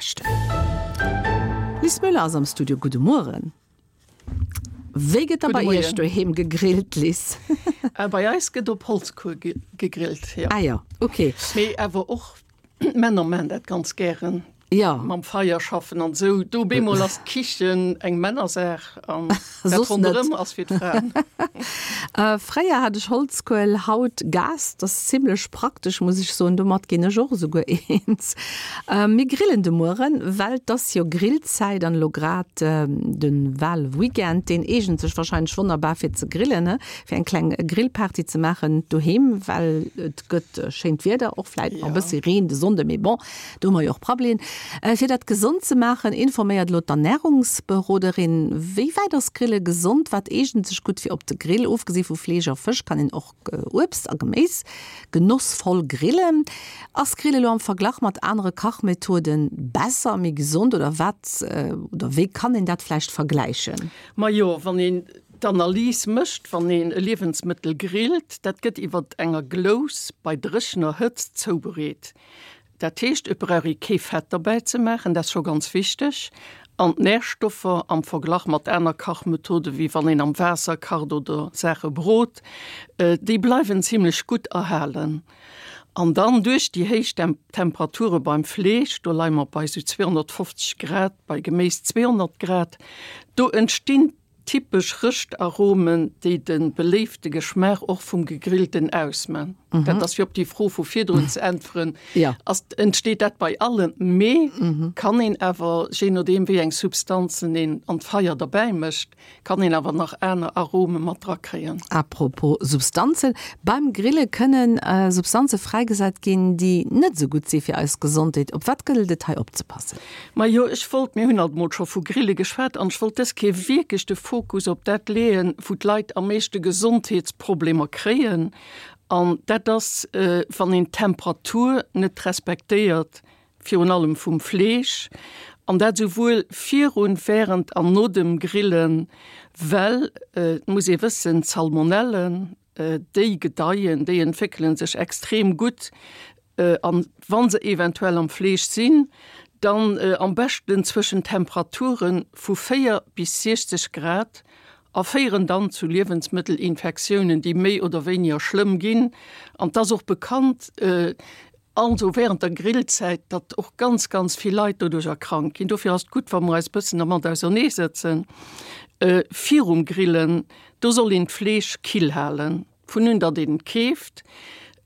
beschten. Liz Müller ass am Studio, gudde Mueren. Wéi gëtt da bei Iech doheem gegrillt, Liz? Bei eis gëtt op Holzkuel gegrillt, jo. Ah jo, ok. Mee awer och d'Männer maachen dat ganz gären. Jo. Mam Feier schaffen an esou. Do op eemol ass d'Kichen eng Männersaach an dat ronderëm ass fir d'Fraen. Fréier hat ech Holzkuel, haut Gas. Dat ass zimlech praktesch, muss ech soen. Domat ginn ech och esouguer eens. Mir grillen de Mueren, well 't ass jo Grillzäit an elo grad de Walweekend, deen eegent sech warscheinlech wonnerbar fir ze grillen, he, fir eng kleng Grillparty ze maachen doheem, well et gëtt schéint Wieder, och vläit nach e bëssi Reen de Sonnde, mee bon, do hu mer jo och Prabbelien. Fir dat gesond ze maachen, informéiert elo d'Ernärungsberoderin. Wéi wäit ass Grille gesond? Wat eegent sech gutt fir op de Grill? Ofgesi vu Fleesch a Fësch kann een och Uebst a Geméis genossvoll grillen. Ass Grille elo am Verglach mat anere Kachmethoden besser, méi gesond oder wat oder wéi kann een dat vläicht vergläichen? Majo, wann een d'Analys mécht, wann een e Liewensmëttel grillt, dat gëtt iwwer enger Glous bei dréchener Hëtzt zoubereet. Dat heescht, et brauch ee kee Fett derbäi ze maachen, dat ass scho ganz wichteg. An d'Närstoffer am Verglach mat aner Kachmethode wéi wann een am Waasser kacht oder Saache brot, déi bleiwen zimlech gutt erhalen. An dann duerch déi héich Temperature beim Fleesch, do leie mer bei esou 250 Grad, bei Geméis 200 Grad, do entstinn Typesch Rëschtaromen, déi de beléifte Geschmaach och vum Gegrillten ausman. Dat ass fir op déi Fro vu virdrun ze äntweren, ass, entsteet dat bei allem, mee kann een awer, jee nodeem wéi eng Substanzen een an d'Feier derbäi mécht, kann een awer nach aner Arome mat drakréien. Apropos Substanzen, Beim Grille kënnen Substanze fräigesat ginn, déi net esou gutt si fir eis Gesondheet. Op wat gëllt et hei opzepassen? Majo, ech wollt, mir hunn alt emol scho vu Grille geschwat, an ech wollt dës Kéier wierklech de Fokus op dat leeën, wou d'Leit am meeschte Gesondheetsproblemer kréien, an dat ass, wann een d'Temperatur net respektéiert, virun allem vum Fleesch, an dat esouwuel virun, während an no dem Grillen, well et muss ee wëssen, d'Salmonellen, Déi gedeien, déi entwéckele sech extrem gutt an wa se eventuell am Fleesch sinn, dann am beschten zwëschen Temperature vu 4 bis 60 Grad a féieren dann zu Liewensmëttelinfektiounen, déi méi oder wéiniger schlëmm ginn. An 't ass och bekannt, Also während der Grillzäit, datt och ganz, ganz vill Leit doduercher krank ginn. Dofir ass et gutt, wa mer eis e bëssen dermat auserneesëtzen. Virum Grillen, do soll een d'Fleesch kill halen, vun un datt een et keeft.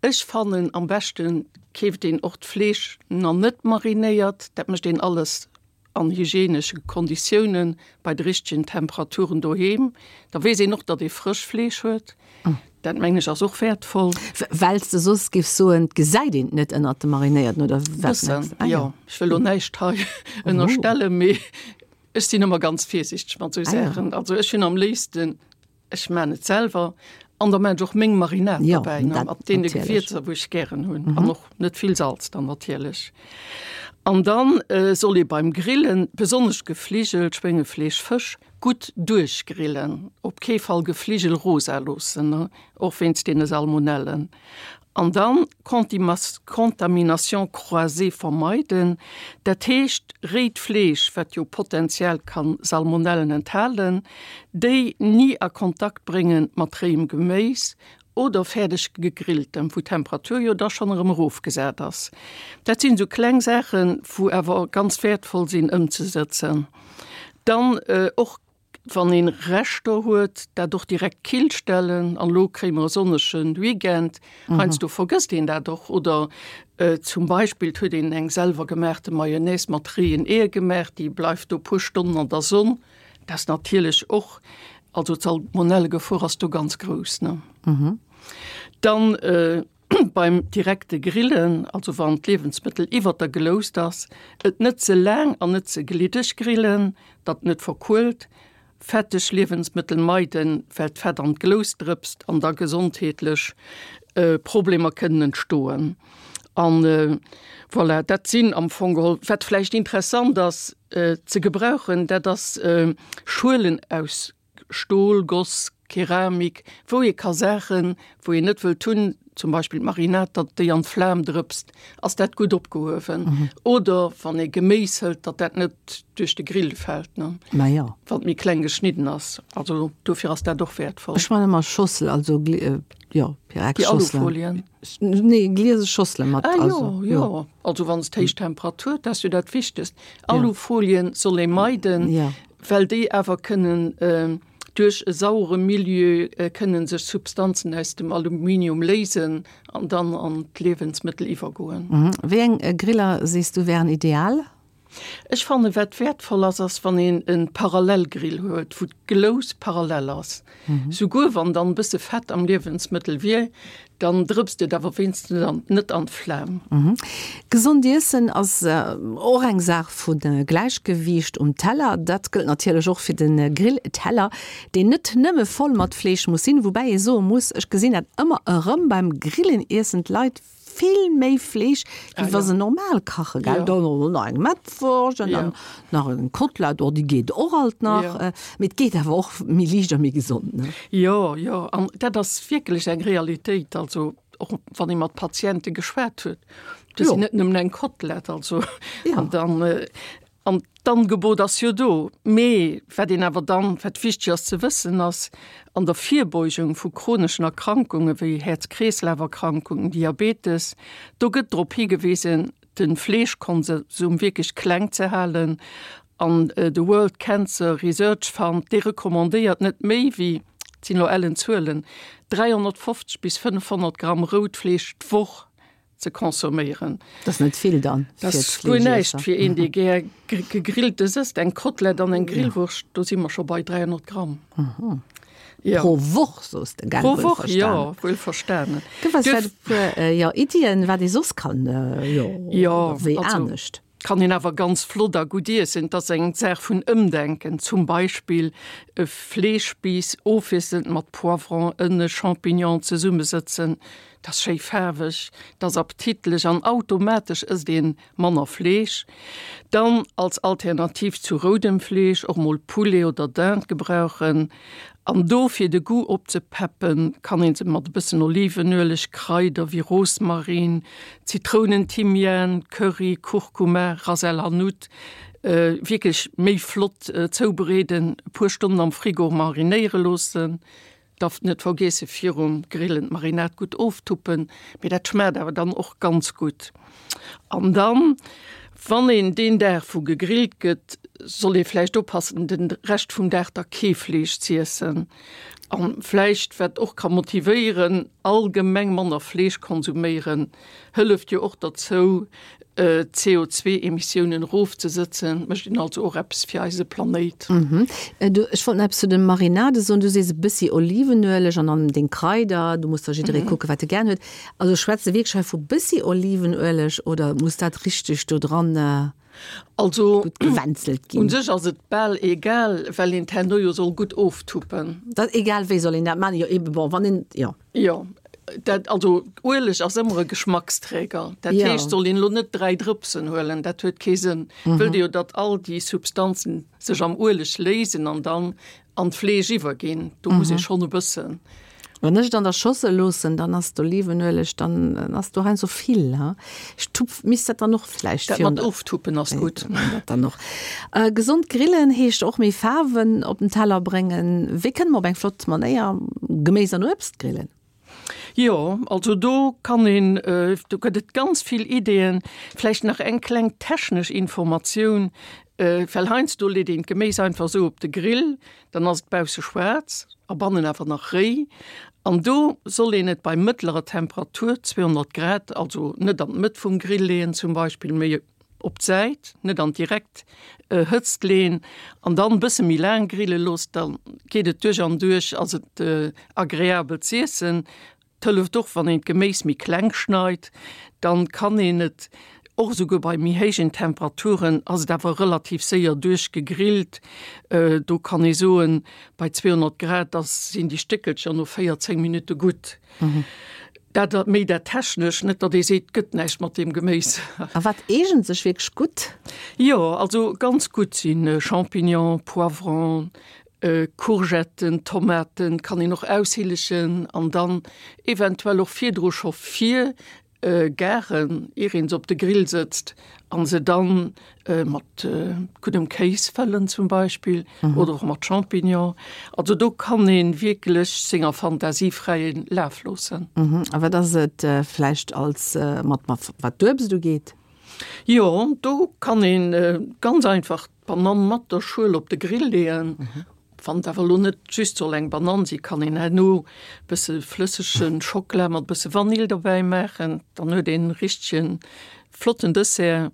Ech fannen, am beschte keeft een och d'Fleesch na net marinéiert. Dat mécht een alles an hygienesche Konditiounen, bei de richtegen Temperaturen doheem, da weess een och, datt ee frësch Fleesch huet. Dat mengen ech ass och wäertvoll. Well s de soss géifs soen, et gesäit een et net ënnert dem Marinéierten, oder wat mengs de? Bëssen, jo. Ech wëll lo näischt hei ënnerstellen, mee ech sinn ëmmer ganz virsiichteg mat esou Saachen. Also ech hunn am léifsten Ech maan et selwer an da maan ech och meng Marinade ja, dobäi, ne, mat deene Gewierzer, wou ech gären hunn mhm. an och net vill Salz dann natierlech. An dann äh, soll ee beim Grillen besonnesch Gefligel, Schwéngefleesch, Fësch gutt duerchgrillen, op kee Fall Gefligel rosa loossen, ne, och wéinst deene Salmonellen. An dann Contamination croisée vermeiden, dat heescht réit Fleesch, wat jo potenziell kann Salmonellen enthalen, déi ni a Kontakt bréngen mat réiem Geméis oder fäerdeg gegrilltem, wou d'Temperatur jo da schonn erëm erofgesat ass. Dat sinn esou kleng Saachen, wou awer ganz wäertvoll sinn ëmzesëtzen. Dann och Wann een Reschter huet, dat och direkt kill stellen. An elo kréie mer e sonnege Weekend, heiansdo vergësst een dat och. Oder zum Beispill et huet een eng selwer gemaachte Mayonnaise mat réien Eeër gemaach, déi bleift do puer Stonnen an der Sonn. Dat ass natierlech och, also d'Salmonellegefor ass do ganz grouss, ne? Dann Beim direkte Grillen, also wann d'Liewensmëttel iwwert der Gloust ass, et net ze laang an net ze gliddeg grillen, datt net verkuelt. Fetteg Liewensmëttel meiden, well d'Fett an d'Glous drëpst an da gesondheetlech Problemer kënnen entstoen. An voilà, dat sinn am Fong geholl. Wat vläicht interessant ass ze gebrauchen, dat ass Schuelen aus Stol, Goss, Keramik, wou ee ka Saachen, wou een net wëllt hunn, zum Beispill d'Marinade, datt déi an d'Flam drëpst, ass dat gutt opgehuewen. Oder wann ee Geméis hëlt, datt dat net duerch de Grill fält, ne? Ma jo. Wann et méi kleng geschnidden ass. Also dofir ass dat och wäertvoll. Ech man ëmmer Schossel, also jo, Pyrex-Schosselen. Déi Alufolien? Nee, gliese Schossele mat. Ah jo, jo. Also wann s d'héich Temperatur, dat ass jo dat Wichtegst. Alufolien soll ee meiden, well déi awer kënnen duerch e sauere Milieu kënnen sech Substanzen aus dem Aluminium léisen an dann an d'Liewensmëttel iwwergoen. Wéi eng Griller sees du wären ideal? Ech fannen wat wäertvoll ass, ass wann een e Parallelgrill huet, wou d'Glous parallel ass. Souguer wann dann e bësse Fett am Liewensmëttel wier, dann drëpst et awer wéinstens net an d'Flam. Gesond iessen ass och eng Saach vu Gläichgewiicht um Teller. Dat gëllt natierlech och fir de Grillteller, deen net nëmme voll mat Fleesch muss sinn. Woubäi ee soe muss, ech gesinn dat ëmmer erëm beim Grillen, iessen d'Leit vill méi Fleesch, wéi wa se normal kachen, gell? Dann och nach eng Mettwurscht an dann nach eng Kotlett, oh déi geet och alt nach. Mee et geet awer och méi liicht a méi gesond, ne? Jo, jo, an dat ass wierklech eng Realitéit. Also och wann ee mat Patiente geschwat huet, do sinn net nëmmen eng Kotlett, also an dann An d'Angebot ass jo do. Mee wat een awer dann, wat wichteg ass ze wëssen, ass, an der Virbeugung vu chroneschen Erkrankunge wéi Häerz-Kreeslaf-Erkrankungen, Diabetes, do gëtt drop higewisen, de Fleeschkonsum wierklech kleng ze halen. An de World Cancer Research Fund, dee recommandéiert net méi wéi, et sinn elo ellen Zuelen, 350 bis 500 Gramm rout Fleesch d'Woch. Ze consomméieren. Dat ass net vill dann fir d'Fleeschießer. Dat ass guer näischt fir een, dee gär Gegrilltes ësst. Eng Kotlett an eng Grillwurscht, do si mer scho bei 300 Gramm. Jo. Pro Woch, soos de, gell? Pro Woch, jo, wuel verstanen. Gëff eis vläicht e puer, jo, Iddien, wat ee soss kann, jo, wéi anescht. Kann een awer ganz flott a gutt iessen. Et ass eng Saach vun Ëmdenken. Zum Beispill e Fleeschspiiss ofwiesselnd mat Poivron, Ënne, Champignon zesummesëtzen. Dat ass schéi faarweg, dat ass appetitlech an automatesch ësst een manner Fleesch. Dann als Alternativ zu roudem Fleesch och mol Poulet oder Dinde gebrauchen. An do fir de Goût opzepeppen, kann een se mat e bëssen Olivenueleg, Kraider wéi Rosmarin, Zitrounenthymian, Curry, Kurkuma, Ras el Hanout wierklech méi flott zoubereeden, e puer Stonnen am Frigo marinéiere loossen. Darf net vergeesse virum Grillen d'Marinade gutt oftuppen, mee dat schmaacht awer dann och ganz gutt. An dann, wann een deen Dag wou gegrillt gëtt, soll ee vläicht oppassen den Rescht vum Dag da kee Fleesch z'iessen. An vläicht, wat och ka motivéieren, allgemeng manner Fleesch konsuméieren, hëlleft jo och derzou d'CO2-Emissiounen erofzesëtzen, mécht een also och eppes fir eise Planéit. Du, ech wollt nach eppes zu de Marinade soen. Du sees e bëssi Olivenueleg an dann deng Kraider. Do muss da jidderee kucken, wat e gären huet. Also schwätze wierklech hei vu bëssi Olivenueleg oder muss dat richteg do dran Also gutt gewänzelt ginn? U sech ass et bal egal, well een et herno jo soll gutt oftuppen. Dat egal wéi soll een dat maachen? Jo eben, bon, wann een, jo. Jo, dat, also Ueleg ass ëmmer e Geschmacksträger. Dat ja. heescht, soll een lo net 3 Drëpsen huelen, dat huet kee Sënn. Mhm. Wëllt Dir jo, datt all déi Substanzen sech am Ueleg léisen an dann an d'Fleesch iwwerginn. Do mhm. muss ee schonn e bëssen. Wann ech et an der Schossel loossen, dann ass d'Olivenueleg, dann ass do heiansdo vill. Ha? Ech tupf, misst dat dann och vläicht. Dat mat oftuppen ass gutt. Dat dann och. Äh, gesond grillen heescht och méi Faarwen op den Teller bréngen. Wéi kënne mer op eng flott Manéier Geméis an Uebst grillen? Jo, also do kann een, do gëtt et ganz vill Ideeën. Vläicht nach eng kleng technesch Informatioun, well heiansdo leet een d'Geméis einfach esou op de Grill, dann ass et bausse schwaarz a bannen awer nach réi. An do soll een et bei mëttlerer Temperatur, 200 Grad, also net an d'Mëtt vum Grill leeën zum Beispill, mee op d'Säit, net an direkt Hëtzt leen an dann bësse méi laang grille looss, da geet et duerch an duerch, ass et agreabel z'iessen. Et hëlleft och wann een d'Geméis méi kleng schneit, dann kann een et och esouguer bei méi héijen Temperaturen, ass et awer relativ séier duerch gegrillt. Do kann ee soen, bei 200 Grad ass sinn déi Stéckelcher no 14 Minutte gutt. Dat méi dat Technesch, net datt ee seet, gëtt näischt mat deem Geméis. A wat eegent sech wierklech gutt? Jo, also ganz gutt si Champignon, Poivron. Courgetten, Tomaten kann een och aushillegen an dann eventuell och virdru scho vir garen, ier een se op de Grill sëtzt an se dann mat guddem Kéis fëllen zum Beispill oder och mat Champignon. Also do kann een wierklech senger Fantasie fräie Laf loossen. A wat ass et vläicht als mat wat d'Uebst ugeet? Jo, do kann een ganz einfach d'Banann mat der Schuel op de Grill leeën. Wann et awer elo net just soll eng Banann sinn, kann een herno bësse flëssege Schockela mat bësse Vanill dobäi maachen, dann huet een e richtege flotten Dessert.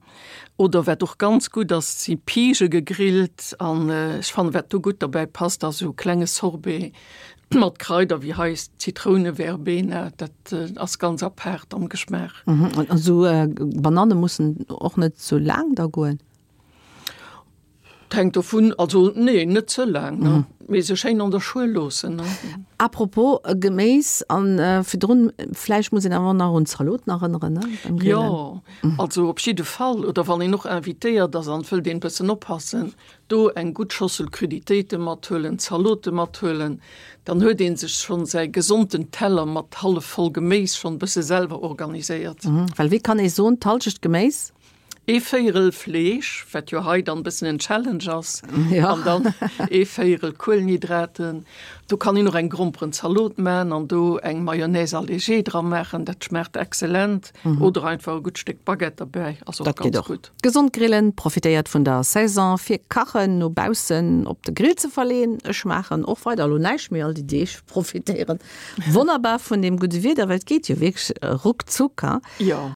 Oder wat och ganz gutt ass, si Pige gegrillt an ech fannen, wat do gutt dobäi passt, ass esou e klenge Sorbet mat Kraider wéi hei Zitrouneverbena, dat ass ganz apaart am Geschmaach. An esou Bananne mussen och net sou laang da goen? Et hänkt dovun, also nee, net ze laang, ne, mee se schéin an der Schuel loossen, ne. Apropos Geméis, an virdrun, vläicht muss een awer och nach un d'Zaloten erënneren, ne, beim Grillen. Jo, also op jidde Fall, oder wann een och invitéiert ass an et wëllt een e bëssen oppassen, do eng gutt Schossel Cruditéite mathuelen, Zalote mathuelen, dann huet ee sech schonn säi gesonten Teller mat hallef voll Geméis schonn e bësse selwer organiséiert. Well wéi kann ee soen, d'Hallschecht Geméis? Ee Véierel Fleesch, wat jo hei dann bëssen en Challenge ass, an dann ee Véierel Kuelenhydraten. Do kann een och eng Gromperenzalot man an do eng Mayonnaise allégée dra maachen, dat schmaacht excellent. Oder einfach e gutt Stéck Baguette derbäi, ass och ganz gutt. Gesond grillen, profitéiert vun der Saison fir Kachen no baussen op de Grill ze verleen. Ech maachen och weider elo näischt méi all déi Deeg, profitéieren wonnerbar vun deem gudde Wieder, well et geet jo wierklech ruckzuck. Jo.